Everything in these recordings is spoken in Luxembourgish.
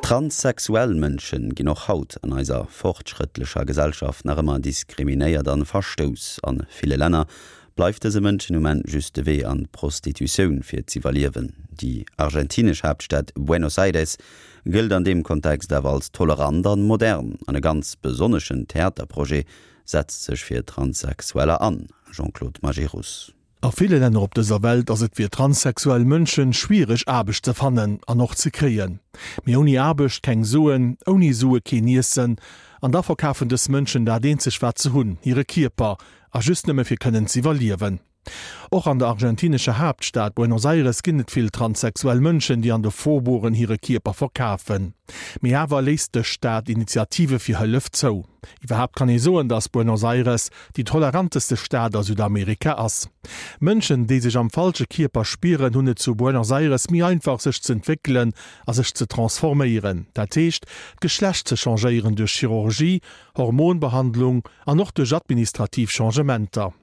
Transsexuell Mënschen ginn och haut an eiser fortschrëttlecher Gesellschaft nach ëmmer diskriminéiert an verstouss. An ville Länner bleift dëse Mënschen um Enn just de Wee an d'Prostitutioun fir z'iwwerliewen. Déi argentinesch Haaptstad Buenos Aires gëllt an deem Kontext awer als tolerant an modern an e ganz besonneschen Theaterprojet setzt sech fir Transsexueller an. Jean-Claude Majerus. A ville Länner op dëser Welt ass et fir transsexuell Mënschen schwiereg Aarbecht ze fannen an och ze kréien. Mee ouni Aarbecht keng Suen, ouni Sue keen Iessen. An da verkafen dës Mënschen dat eenzeg wat se hunn, hire Kierper, a just nëmme fir kënnen z'iwwerliewen. Och an der argentinescher Haaptstad Buenos Aires ginn et vill transsexuell Mënschen, déi an de Faubourgen hire Kierper verkafen. Mee awer léisst dës Stad Initiative fir Hëllef zou. Iwwerhaapt kann ee soen, datt Buenos Aires déi toleranteste Stad a Südamerika ass. Mënschen, déi sech am falsche Kierper spieren, hunn et zu Buenos Aires méi einfach sech z'entwéckelen a sech ze transforméieren, dat heescht d'Geschlecht ze changéieren duerch Chirurgie, Hormonbehandlung an och duerch administrativ Changementer.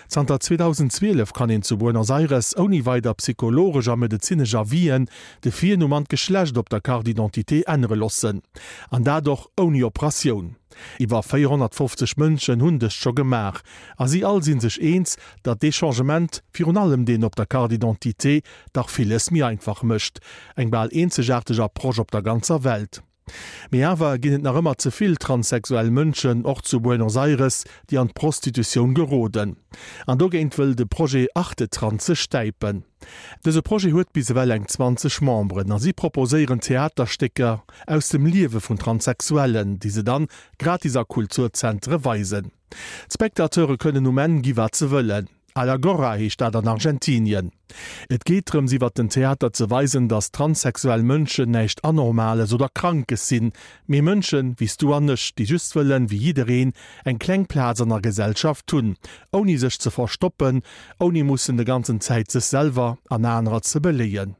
Zanter 2012 kann een zu Buenos Aires ouni weider psychologesch a medezinesch Avisen de Virnumm an d'Geschlecht op der Carte d'identité ännere loossen. An dat och ouni Operatioun. Iwwer 450 Mënschen hunn dëst scho gemaach a si all si sech eens, datt dee Changement, virun allem deen op der Carte d'identité, dach villes méi einfach mécht. Eng bal eenzegaarteg Approche op der ganzer Welt. Mee awer ginn et nach ëmmer ze vill transsexuell Mënschen, och zu Buenos Aires, déi an d'Prostitutioun geroden. An dogéint wëll de Projet Artetrans sech stäipen. Dëse Projet huet bis ewell eng 20 Memberen a si proposéieren Theaterstécker aus dem Liewe vun Transsexuellen, déi se dann gratis a Kulturzentere weisen. D'Spectateure kënnen um Enn gi wat se wëllen. A la Gorra heescht dat an Argentinien. Et geet drëms iwwer den Theater ze weisen, datt transsexuell Mënschen näischt Anormales oder Krankes sinn, mee Mënschen wéi s du an ech, déi just wëllen, wéi jiddereen, eng kleng Plaz an der Gesellschaft hunn, ouni sech ze verstoppen, ouni mussen de ganzen Zäit sech selwer an anerer ze beléien.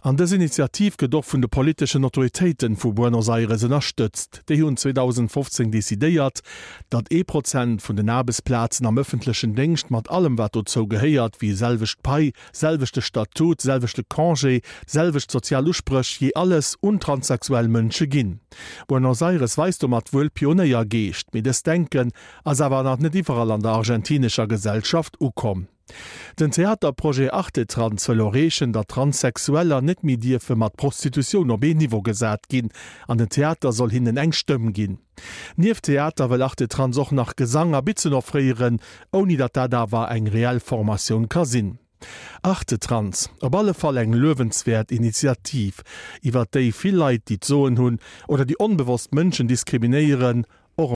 An dës Initiativ gëtt och vun de politeschen Autoritéiten vu Buenos Aires ënnerstëtzt. Déi hunn 2015 decidéiert, datt ee Prozent vun den Aarbechtsplazen am ëffentlechen Déngscht mat allem wat dozou gehéiert, wéi selwecht Pai, selwechte Statut, selwechte Congé, selwecht sozial Uspréch, jee alles, un transsexuell Mënsche ginn. Buenos Aires weist domat wuel Pionéiergeescht, mee dëst Denken ass awer nach net iwwerall an der argentinescher Gesellschaft ukomm. Den Theaterprojet Artetrans wëll erreechen, datt Transsexueller net méi dierfe mat Prostitutioun op een Niveau gesat ginn an den Theater soll hinnen eng Stëmm ginn. Nieft Theater wëll Artetrans och nach Gesang a Bitzen offréieren, ouni datt dat awer eng reell Formatioun ka sinn. Artetrans, op alle Fall eng luewenswäert Initiativ, iwwert déi vill Leit, déi d'Soen hunn oder déi onbewosst Mënschen diskriminéieren.